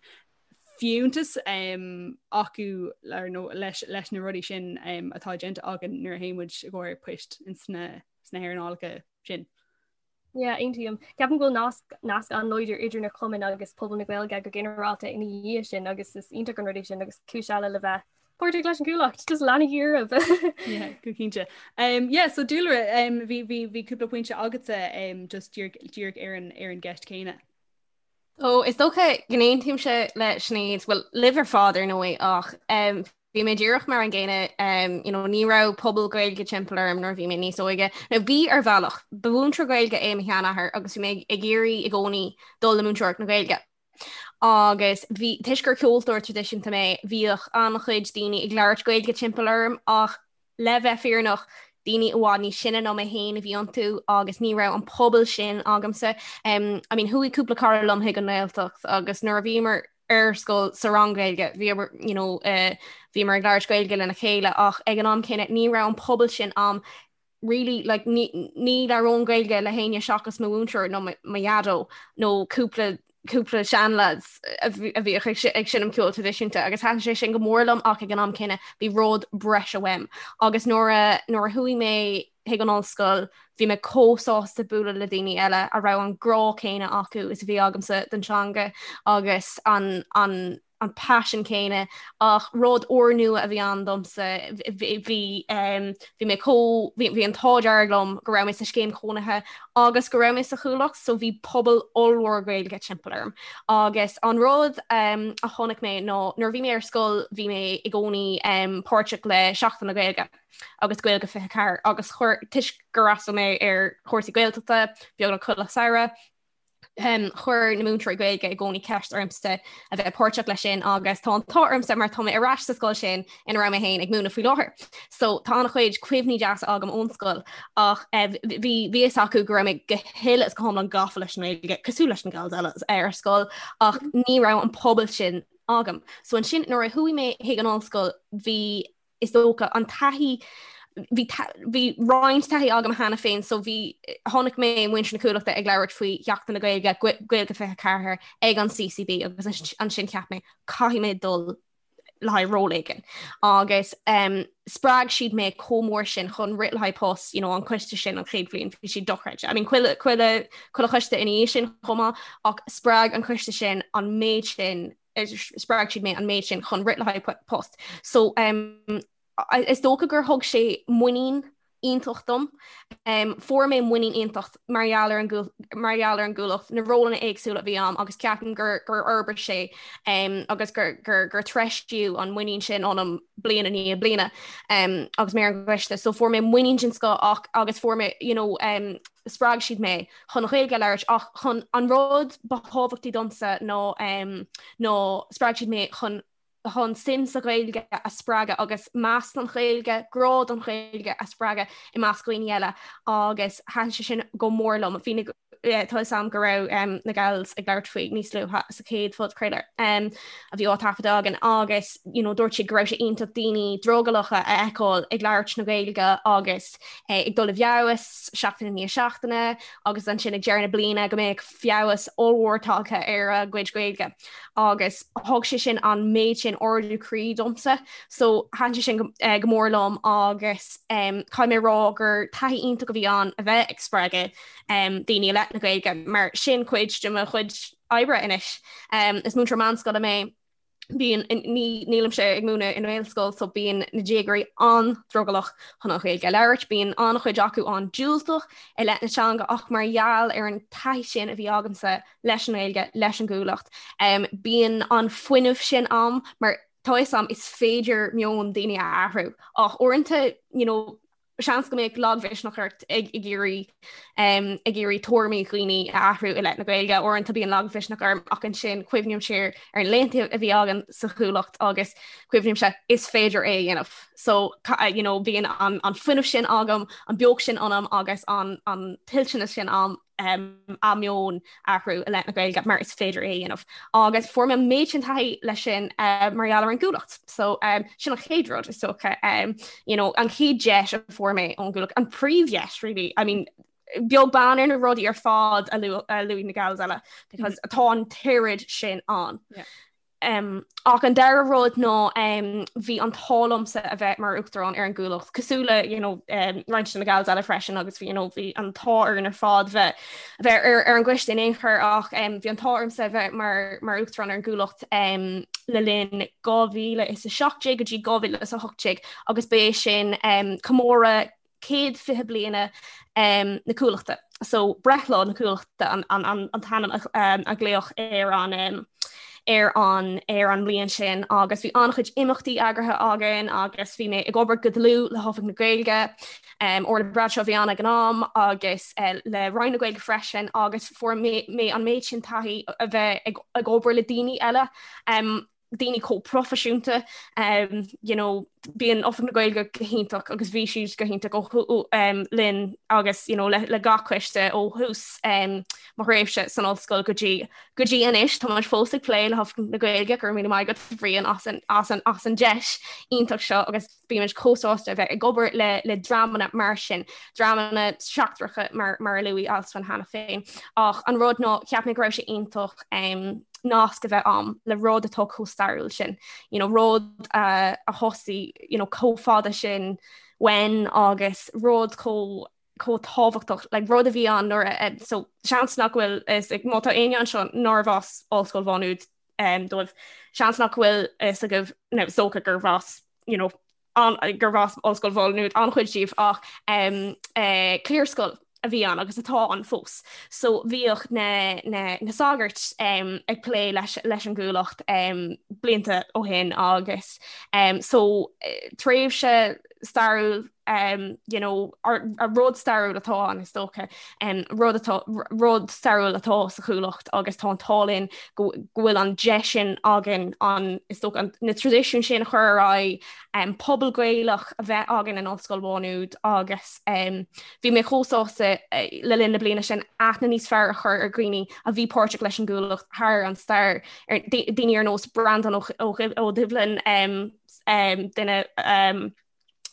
Speaker 6: fiúntas um, acu nó leis, leis na rudaí sin um, atá déanta againn nuair a théann muid i gcomhair poist in sna, sna hearnálacha sin.
Speaker 9: Yeah, aontaím. Ceapaim go bhfuil nasc nasc an-láidir idir na cumainn agus pobal na Gaeilge go ginearálta ina dhiaidh sin agus is iontach an rud é sin agus cúis eile le bheith páirteach leis an gCuallacht, just leanaigí oraibh.
Speaker 6: Yeah, go cinnte. Um, yeah, so Dúlra, um, bhí bhí bhí cúpla pointe agatsa um, just díreach díreach ar an ar an gceist céanna.
Speaker 8: Ó, is dócha go n-aontaímse le Sinéad, bhuel, libh ar fad ar ndóigh ach um, bhí mé díreach mar an gcéanna, um, you know, ní raibh pobal Gaeilge timpeall orm nuair a bhí mé níos óige. Nó bhí ar bhealach, ba mhúinteoir Gaeilge é mo sheanathair agus bhí mé ag iarraidh i gcónaí dul le múinteoireacht na Gaeilge. Agus bhí toisc gur ceoltóir traidisiúnta mé, bhíodh an-chuid daoine ag labhairt Gaeilge timpeall orm ach Le bheith fírinneach, daoine i bhfad níos sine ná mé féin a bhí iontu agus ní raibh an pobal sin agamsa. I mean, chuaigh cúpla cara liom chuig an nGaeltacht agus nuair a bhíomar ar scoil sa rang Gaeilge, bhíomar, you know, uh, bhíomar ag labhairt Gaeilge lena chéile ach ag an am céanna ní raibh an pobal sin a'm really like ní ní labhróinn Gaeilge le héinne seachas mo mhúinteoir nó mo dhaideo nó cúpla cúpla seanlads a bhíodh ag seinm ceol traidisiúnta agus thaitin sé sin go mór liom ach ag an am céanna bhí rud breise uaim. Agus nuair a nuair a chuaigh mé chuig an ollscoil bhí mé chomh sásta bualadh le daoine eile a raibh an grá céanna acu is a bhí agamsa don teanga agus an an. an paisean céanna ach rud úrnua a bhí ann domsa bhí bhí mé chomh bhí an t-ádh dearg liom go raibh mé sa scéim chónaithe agus go raibh mé sa Chuallacht so bhí pobal ollmhór Gaeilge timpeall orm agus an rud a chonaic mé ná nuair a bhí mé ar scoil bhí mé i gcónaí páirteach le Seachtain na Gaeilge agus Gaeilge 24 agus chuir toisc gur fhreastail mé ar chúrsaí Gaeltachta beagnach chuile samhradh Chuir na múinteoirí Gaeilge i gcónaí ceist ormsa a bheith páirteach leis sin agus tá an t-ádh ormsa mar tá mé ar ais sa scoil sin ina raibh mé féin ag múineadh faoi láthair. So tá an-chuid cuimhní deasa agam ón scoil ach bhí bhí fhios acu go raibh mé go huile is go hiomlán gafa leis an nGaeilge cosúil leis na gals eile ar scoil ach ní raibh an pobal sin agam. So ansin nuair a chuaigh mé chuig an ollscoil bhí is dócha, an taithí, bhí bhí roinnt taithí agam cheana féin so bhí chonaic mé muintir na Cuallachta ag labhairt faoi Sheachtain na Gaeilge, Gaeilge 24 ag an CCB agus ansin cheap mé caithfidh mé dul le haghaidh ról éigin. Agus um, spreag siad mé chomh mór sin chun rith le haghaidh post, you know, an coiste sin an chéad bhliain bhí siad dochreidte. I mean, chuile, chuile, chuile choiste ina dhiaidh sin chomh maith ach spreag an coiste sin an méid sin spreag siad mé an méid sin chun rith le haghaidh post. So um, is dócha gur thug sé muinín iontach dom. Um, fuair mé muinín iontach mar gheall ar an mar gheall ar an gCuallacht, na rólanna éagsúla a bhí a'm agus ceapaim gur gur fhorbair sé um, agus gur, gur, gur treisíodh an muinín sin ionam bliain i ndiaidh bliana um, agus mé ar an gcoiste. So fuair mé muinín den scoth ach agus fuair mé you know, um, spreag siad mé chun an Ghaeilge a labhairt ach chun an rud ba thábhachtaí domsa ná ná spreag siad mé chun chun suim sa Ghaeilge a spreagadh agus meas don Ghaeilge, grá don Ghaeilge a spreagadh i measc dhaoine eile agus thaitin sé sin go mór liom. Bhí na tá fhios a'm go raibh na gals ag labhairt faoi níos luaithe sa chéad phodchraoladh a bhí á taifeadadh againn agus you know dúirt siad go raibh sé iontach daoine drogallacha a fheiceáil ag labhairt na Gaeilge agus ag dul i bhfeabhas seachtain i ndiaidh seachtaine agus ansin ag deireadh na bliana go mbeadh feabhas ollmhór tagtha ar a gcuid Gaeilge agus thug sé sin an méid sin ardú croí domsa so thaitin sé sin go, eh, go mór liom agus um, caithfidh mé rá gur taithí iontach a bhí ann a bheith ag spreagadh um, daoine i leith na Gaeilge mar sin cuid de mo chuid oibre anois. Um, is múinteoir meánscoile mé bíonn nílimse ag múineadh i nGaelscoil so bíonn na déagóirí an-drogallach chun an Ghaeilge a labhairt, bíonn an-chuid acu an-diúltach i leith na teanga ach mar gheall ar an taithí sin a bhí agamsa leis an nGaeilge, leis an gCuallacht, um, bíonn an fuinneamh sin a'm mar tá fhios a'm is féidir meon daoine a athrú ach uaireanta you know, seans go mbeadh lagmhisneach ort ag iarraidh ag iarraidh tuairimí dhaoine a athrú i leith na Gaeilge. Uaireanta bíonn lagmhisneach orm ach ansin cuimhním siar ar na laethanta a bhí againn sa Chuallacht agus cuimhnímse is féidir é a dhéanamh. So you know, bíonn an, an fuinneamh sin agam, an beocht sin ionam agus an, an toilteanas sin a'm um, a meon a athrú i leith na Gaeilge mar is féidir é a dhéanamh. Agus fuair mé an méid sin taithí leis sin uh, mar gheall ar an gCuallacht. So um, sin an chéad rud is dócha um, you know, an chéad deis a fuair mé ón gCuallacht, an príomhdheis really. I mean, beag beann ar na rudaí ar fad a luaigh na gals eile because mm -hmm. tá an t-oiread sin ann. Yeah. Ach an dara rud ná bhí an t-ádh liomsa a bheith mar uachtarán ar an gCuallacht, cosúil le you know, roinnt de na gals eile freisin agus bhí you know, bhí an t-ádh orainn ar fad bheith bheith ar, ar an gcoiste in aon chor ach um, bhí an t-ádh ormsa a bheith mar, mar uachtarán ar an gCuallacht um, le linn 2017 go dtí 2018 agus b'é sin um, comóradh 120 bliana na Cuallachta. So breithlá na Cuallachta an, an, an, an t-ainm a, a glaodh ar an ar an ar an mbliain sin agus bhí an-chuid imeachtaí eagraithe againn agus bhí mé ag obair go dlúth le hOifig na Gaeilge um, Orla Bradshaw a bhí ann ag an am agus uh, le Roinn na Gaeilge freisin agus fuair mé, mé an méid sin taithí a bheith ag, ag obair le daoine eile um, daoine chomh proifisiúnta um, you know, bíonn Oifig na Gaeilge go hiontach agus bhí siad go hiontach ó um, linn agus you know, le, le gach coiste ó thús um, mo thréimhse san ollscoil go dtí go dtí anois tá muid fós ag plé le hOifig na Gaeilge go raibh míle maith agat Bhriain as an, as an, as an deis iontach seo agus Bímid chomh sásta a bheith ag obair le le dreamanna mar sin, dreamanna seachtracha mar mar a luaigh Alswyn cheana féin. Ach an rud ná cheap mé go raibh sé iontach um, nasc a bheith a'm le rud atá chomh stairiúil sin. You know, rud uh, a thosaigh you know, chomh fada sin uainn agus rud chomh chomh tábhachtach like, rud a bhí ann nuair a, so seans nach bhfuil is má tá éinne anseo nárbh as Ollscoil Mhá Nuad. dóibh. Seans nach bhfuil fhios agaibh nó is dócha gurbh as you know, an, gurbh as Ollscoil Mhá Nuad an-chuid díobh ach cliarscoil a bhí ann agus atá ann fós. So bhíodh na, na, na sagairt um, ag plé leis, leis an gCuallacht um, blianta ó shin agus um, so tréimhse stairiúil um, you know, a rud stairiúil atá ann is dócha um, rud atá rud stairiúil atá sa Chuallacht agus tá an t-ádh linn go bhfuil an deis sin againn an is dócha an, na traidisiúin sin a chur ar aghaidh um, pobal Gaelach a bheith againn in Ollscoil Mhá Nuad agus um, bhí mé chomh sásta uh, le linn na bliana sin aithne níos fearr a chur ar dhaoine a bhí páirteach leis an gCuallacht thar an stair ar daoine ar nós Breandán Ó, Ó, Ó Doibhlin um, um, duine um,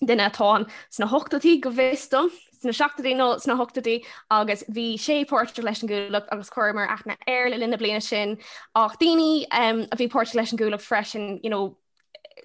Speaker 8: duine atá ann sna hochtóidí go bhfios dom, sna seachtóidí nó sna hochtóidí agus bhí sé páirteach leis an gCuallacht agus chuireamar aithne air le linn na bliana sin ach daoine um, a bhí páirteach leis an gCuallacht freisin you know,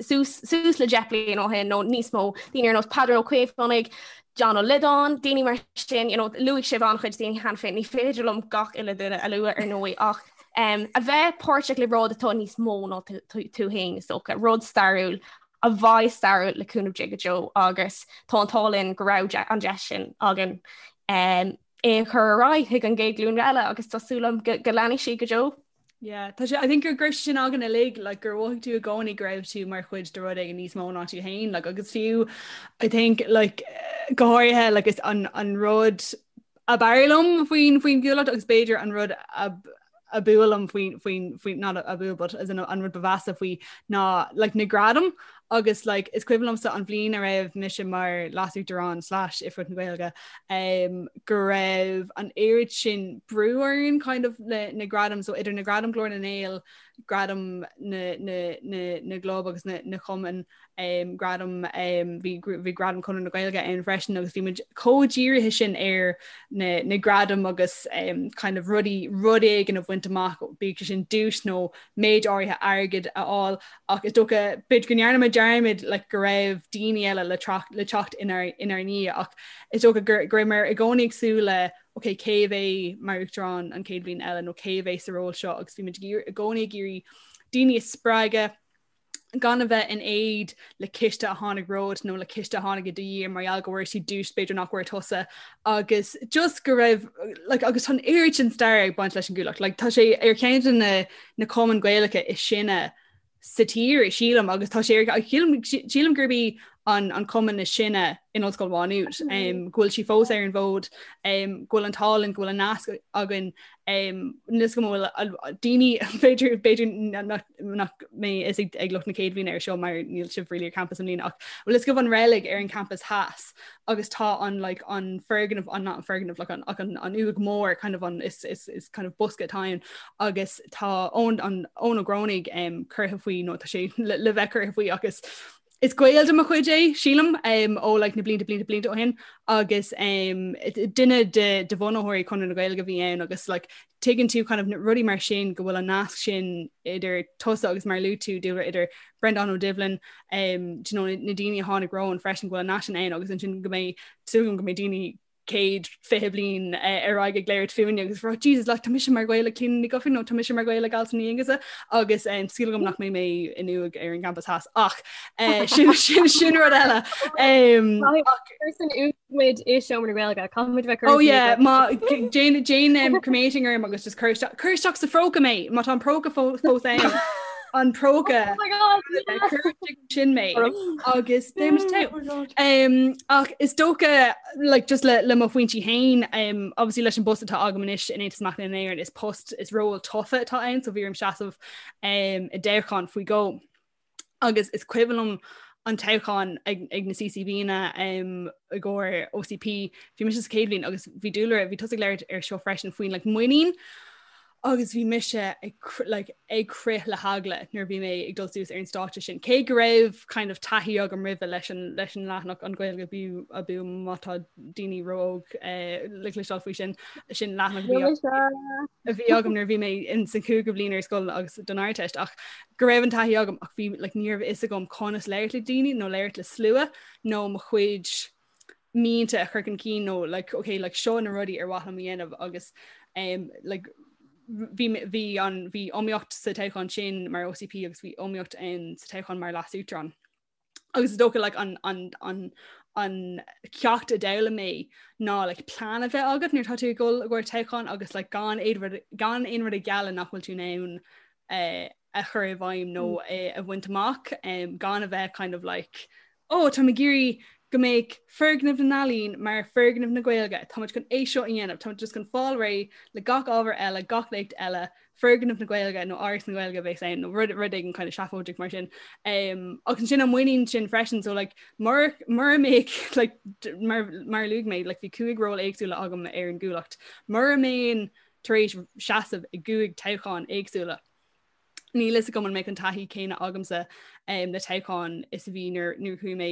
Speaker 8: suas, suas le 10 bliain ó shin nó níos mó, daoine ar nós Peadar Ó Caomhánaigh, John Ó Loideáin, daoine mar sin, you know, luaigh sibh an-chuid daoine cheana féin, ní féidir liom gach uile duine a lua ar ndóigh ach um, a bheith páirteach le rud atá níos mó ná tú féin is dócha, rud stairiúil a bheidh stairiúil le cúnamh Dé go deo agus tá an t-ádh linn go raibh an deis sin againn é a chur ar aghaidh chuig an gcéad ghlúin eile agus tá súil agam go leanfaidh sí go deo.
Speaker 6: Yeah, tá sé I think gur go raibh sin againn uilig like, gur mhothaigh tú i gcónaí go raibh tú mar chuid de rud éigin níos mó ná tú féin like, agus fiú I think like, go háirithe like, is an, an rud ab fhearr liom faoin faoin gCuallacht agus b'fhéidir an rud ab ab fhuath liom faoin faoin faoin not ab fhuath but as in an rud ba mheasa faoi ná like na gradaim agus like is cuimhin liomsa an bhliain a raibh mise mar leasuachtarán slash Oifigeach na Gaeilge um, go raibh an oiread sin brú orainn kind of le na gradaim so idir na gradaim Glór na nGael gradaim na na na na gclub agus na na cumann um, gradam um, bhí bhí gradam Chonradh na Gaeilge ann freisin agus bhí muid chomh dírithe sin ar na, na gradaim agus um, kind of rudaí rud éigin a bhaint amach bíodh sé sin duais nó méid áirithe airgid a fháil ach is dócha b'fhéidir go ndearna muid dearmad like, go raibh daoine eile le, le teacht inár, inár ndiaidh ach is dócha go, go raibh muid i gcónaí ag súil le ok cé a bheidh mar uachtarán an chéad bhliain eile nó cé a bheidh sa ról seo agus bhí muid i gcónaí ag iarraidh daoine a spreagadh gan a bheith in éad le ciste a tháinig romhat nó le ciste a tháinig i do dhiaidh mar gheall go bhfuair siad duais b'fhéidir nach bhfuair tusa agus just go raibh like, agus tá an oiread sin stair ag baint leis an gCuallacht like, tá sé ar cheann de na, na cumainn Gaelacha is sine sa tír sílim agus tá sé ar sílim, sílim gurb í an, an cumann is sine in Ollscoil Mhá Nuad um, go bhfuil sí fós ar an bhfód um, go bhfuil an t-ádh linn go bhfuil an nasc againn um, níos go bhfuil daoine b'fhéidir b'fhéidir nach nach mbeidh fhios ag lucht na céad bhliana ar seo mar níl sibh really ar campus i mbliana ach bhfuil fhios agaibh an reilig ar an campus theas agus tá an like an foirgneamh an not an foirgneamh like an ach an an uaigh mór kind of an is is is kind of bosca atá ann agus tá Eoin an Eoin Ó Grónaigh um, curtha faoi nó tá sé le, le bheith curtha faoi agus Is gaol de mo chuid é, sílim, um, ó like, na blianta blianta blianta ó shin agus um, duine de, de bhunaitheoirí Chonradh na Gaeilge a bhí ann agus like, tuigeann tú kind of rudaí mar sin go bhfuil an nasc sin idir tusa agus mar luaigh tú Dúlra idir Breandán Ó Doibhlin um, do you know, na, na daoine a tháinig romhainn freisin go bhfuil an nasc sin ann agus ansin go mbeidh súil agam go mbeidh daoine 120 bliain ar aghaidh ag labhairt fúinne agus rá Jesus like tá mise mar ghaol le Clíona Ní Dhufaigh nó tá mise mar ghaol le Alison Ní Aonghusa agus um, súil agam nach mbeidh mé in uaigh ar an gcampas theas ach uh, sin, sin, sin rud eile.
Speaker 9: Um, san uaigh i seomra na Gaeilge caithfimid bheith
Speaker 6: Oh yeah, má déan déan um, cremating orm agus just cuir isteach cuir isteach sa phróca mé má tá an próca fós ann an próca
Speaker 9: Oh my God, yeah.
Speaker 6: cuir sin mé agus beimid togha. Um, ach is dócha like, just le, le mo phointí féin um, obviously leis an bpost atá agam anois in Aontas Mac Léinn na hÉireann is post is ról tofa atá ann so bhí orm seasamh um, i dtoghchán faoi dhó agus is cuimhin liom an toghchán ag, ag na CCBanna um, i gcomhair OCP bhí mise sa chéad bhliain agus bhí Dúlra bhí tusa ag labhairt ar seo freisin faoin like, muinín agus bhí mise ag like, ag crith le heagla nuair bhí mé ag dul suas ar an stáitse sin. Cé go raibh kind of taithí agam roimhe leis an, leis an leathanach an Ghaeilge Abú abú má tá daoine ró-óg eh, le cloisteáil faoi sin sin leathanach a bhí agam nuair bhí mé in san cúigiú bliain ar scoil agus don Ardteist ach go raibh an taithí agam ach bhí like, ní raibh fhios agam conas labhairt le daoine nó labhairt le slua nó mo chuid mianta a chur chun cinn nó like okay like seo na rudaí ar mhaith liom a dhéanamh agus um, like, bhí bhí an bhí iomaíocht sa toghchán sin mar OCP agus bhí iomaíocht in sa toghchán mar leas-uachtarán. Agus is dócha like, an, an, an, an ceacht a d'fhoghlaim mé ná like, plean a bheith agat nuair atá tú ag dul i gcomhair toghchán agus like, gan aon rud gan aon rud a ghealladh nach bhfuil tú in ann eh, a chur i bhfeidhm nó mm. eh, a bhaint amach um, gan a bheith kind of like oh tá ag iarraidh go mbeidh foirgneamh na n-ealaíon mar foirgneamh na Gaeilge, Táimid chun é seo a dhéanamh, táimid just chun fáil réidh le gach ábhar eile, gach léacht eile, foirgneamh na Gaeilge nó Áras na Gaeilge a bheas ann nó rud rud éigin kind of seafóideach mar sin. Um, agus ansin an muinín sin freisin, so like, mura mura mbeadh like, mar, mar a luaigh mé, like, bhí cúig ról éagsúla agam ar an gCuallacht. Mura mbeinn tar éis seasamh i gcúig toghchán éagsúla, Níl fhios agam an mbeadh an taithí céanna agamsa um, le toghchán is a bhí nuair nuair chuaigh mé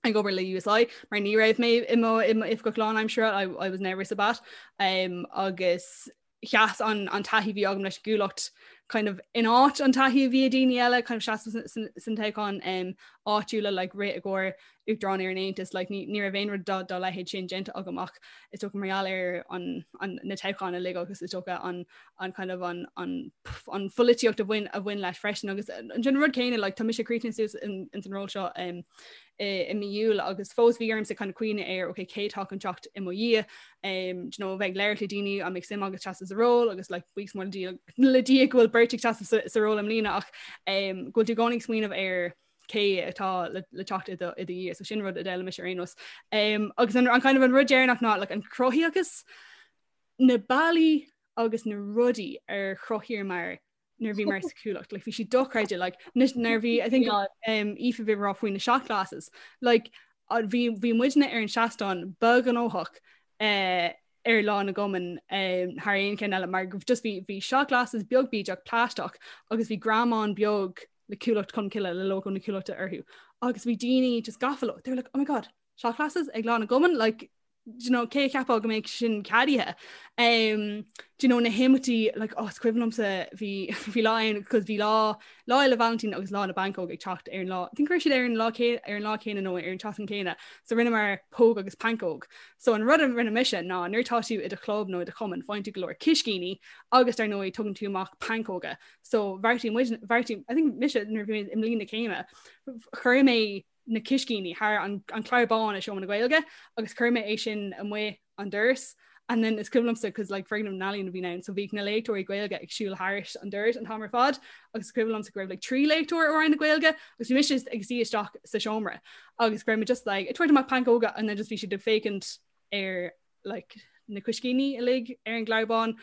Speaker 6: ag obair le USI mar ní raibh mé i mo i mo oifigeach lánaimseartha I, I was never sa-bat um, agus sheas an, an taithí bhí agam leis an gCuallacht kind of in áit an taithí a bhí ag daoine eile kind of seasamh san toghchán um, áitiúla like rith i gcomhair Uachtarán ar an Aontas, like, ní, ní raibh aon rud dá, dá leithéid sin déanta agam ach is dócha mar gheall ar an, an, na toghcháin uilig agus is dócha an, an kind of an, an, an pholaitíocht a bhain, a bhain leis freisin agus an sin rud céanna like, tá mise críochnaithe suas in, in san ról seo um, i, i mí Iúil agus fós bhí ormsa kind of cuimhneamh ar okay, cé atá chun teacht i mo dhiaidh um, do you know, bheith ag labhairt le daoine an mbeidh suim agat seasamh sa ról agus like, buíochas mór le Dia, le Dia go bhfuil beirt ag seasamh sa, sa ról i mbliana ach um, go bhfuil tú i gcónaí ag smaoineamh ar cé atá le, le teacht i do, i do dhiaidh, so sin rud a d'fhoghlaim mise ar aon nós. Um, agus an, an kind of an rud deireanach ná like, an cruthaitheachas, na bealaí agus na rudaí ar chruthaíomar nuair a bhíomar sa Chuallacht, like, bhí sé dochreidte, like, nuair bhí, I think, um, Aoife bhí rá faoi na shot glasses, like, bhí, bhí muidne ar an seastán ba ghnóthach uh, ar Lá na gCumann um, thar aon cheann eile mar just bhí, bhí shot glasses beag bídeach plaisteach agus bhí greamán beag le Cuallacht Cholmcille le lógó na Cuallachta orthu agus bhí daoine just gafa leo. They were like, oh my god, shot glasses ag Lá na gCumann, like, do you know, cé a cheapfadh go mbeadh sin ceadaithe. Um, do you know, na himeachtaí, like, oh, is cuimhin liomsa bhí bhí lá ann, cos bhí lá Lá Fhéile Vailintín agus Lá na bPancóg ag teacht ar an lá. I think raibh siad ar an lá ar an lá céanna nó ar an tseachtain céanna, so rinneamar póg agus pancóg. So an rud a rinne mise ná nuair atá tú i do chlub nó i do chumann, faigheann tú go leor ciscíní agus dar ndóigh tugann tú amach pancóga. So bheartaigh muid, bheartaigh, I think mise nuair a bhí mé i mbliain na céime, chuir mé na ciscíní thar an, an clár bán i Seomra na Gaeilge agus chuir mé é sin amuigh an doras. And then is cuimhin liomsa cos like foirgneamh na n-ealaíon a bhí ann, so bhíodh na léachtóirí Gaeilge ag siúl thairis an doras an t-am ar fad agus is cuimhin liomsa go raibh like 3 léachtóir ó Roinn na Gaeilge agus bhí mise ag suí isteach sa seomra agus go raibh mé just like ag tabhairt amach pancóga and then just bhí siad ag féachaint ar like, na cuiscíní uilig ar an gclár bán.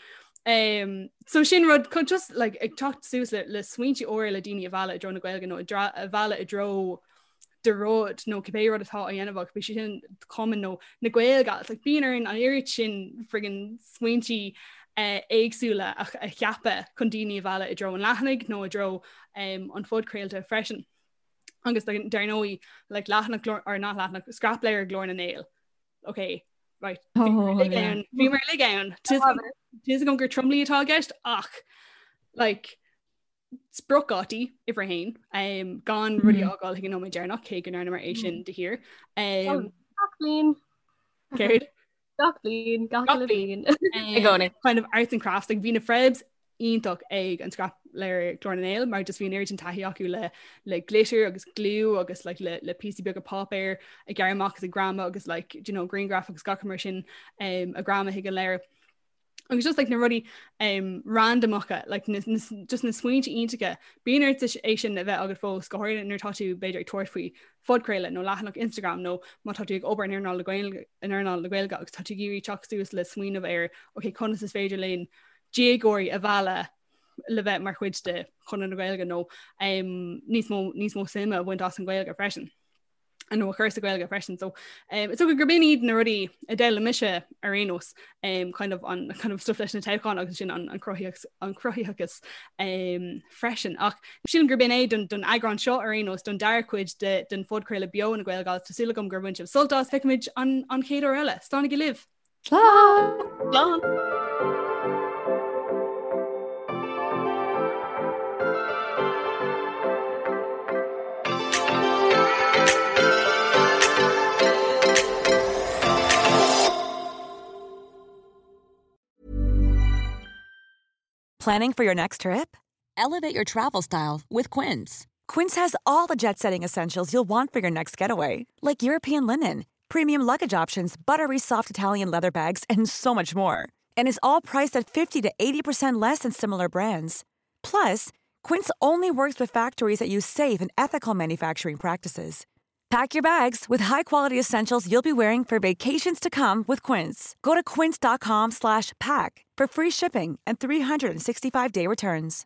Speaker 6: Um, so sin rud chun just like, ag teacht suas le, le smaointe úra le daoine a mhealladh i dtreo na Gaeilge nó a mhealladh i dtreo do rud nó cibé rud atá á dhéanamh agat, bíodh sé sin cumann nó na Gaeilge, like, bíonn orainn an oiread sin friggin smaointe uh, éagsúla a, a cheapadh chun daoine a mhealladh i dtreo an leathanaigh nó i dtreo um, an phodchraolta freisin. Agus dar ndóigh like, leathanach or not leathanach scrapleabhar Ghlór na nGael. ok right bhí mar lig ann Tá agam gur tromluí atá i gceist ach like spriocdhátaí uimhir a haon um, gan rudaí a fhágáil chuig an nóiméad deireanach cé go ndearnamar é sin de shíor. Um,
Speaker 9: Gach bliain.
Speaker 6: Céard?
Speaker 9: Gach bliain, gach uile bliain.
Speaker 8: I gcónaí.
Speaker 6: Kind of arts and crafts, like, bhí na Frebs iontach ag an scrapleabhar Glór na nGael mar just bhí an oiread sin taithí acu le le glitter agus glue agus like, le, le píosaí beaga páipéir a ghearradh amach agus a ghreamú agus like, you know, grianghraif agus gach mar sin um, a ghreamú chuig an leabhar. Agus just like, na rudaí um, randamacha like, na, na, just na smaointe iontacha bíonn ort é sin a bheith agat fós go háirithe nuair atá tú b'fhéidir ag tabhairt faoi phodchraoladh nó leathanach Instagram nó má tá tú ag obair in earnáil na Gaeilge in earnáil na Gaeilge agus tá tú ag iarraidh teacht suas le smaoineamh ar ok conas is féidir linn déagóirí a mhealladh le bheith mar chuid de Chonradh na Gaeilge nó um, níos mó níos mó suime a bhaint as an Ghaeilge freisin. nó a chur sa Ghaeilge freisin. So um, is dócha gurb in iad na rudaí a d'fhoghlaim mise ar aon nós um, kind of an kind of stuff leis na toghcháin agus sin an, an cruthaitheachas an cruthaitheachas um, freisin. Ach sílim gurb in é don, don eagrán seo ar aon nós don dara cuid de, den phodchraoladh beo na Gaelgals Tá súil agam gur bhain sibh sult as feicfimid an, an chéad uair eile. Slánaigí libh!
Speaker 7: Slán!
Speaker 8: Slán!
Speaker 10: Planning for your next trip? Elevate your travel style with Quince. Quince has all the jet setting essentials you'll want for your next getaway, like European linen, premium luggage options, buttery soft Italian leather bags, and so much more. And is all priced at 50 to 80% less than similar brands. Plus, Quince only works with factories that use safe and ethical manufacturing practices. Pack your bags with high-quality essentials you'll be wearing for vacations to come with Quince. Go to quince.com slash pack for free shipping and 365-day returns.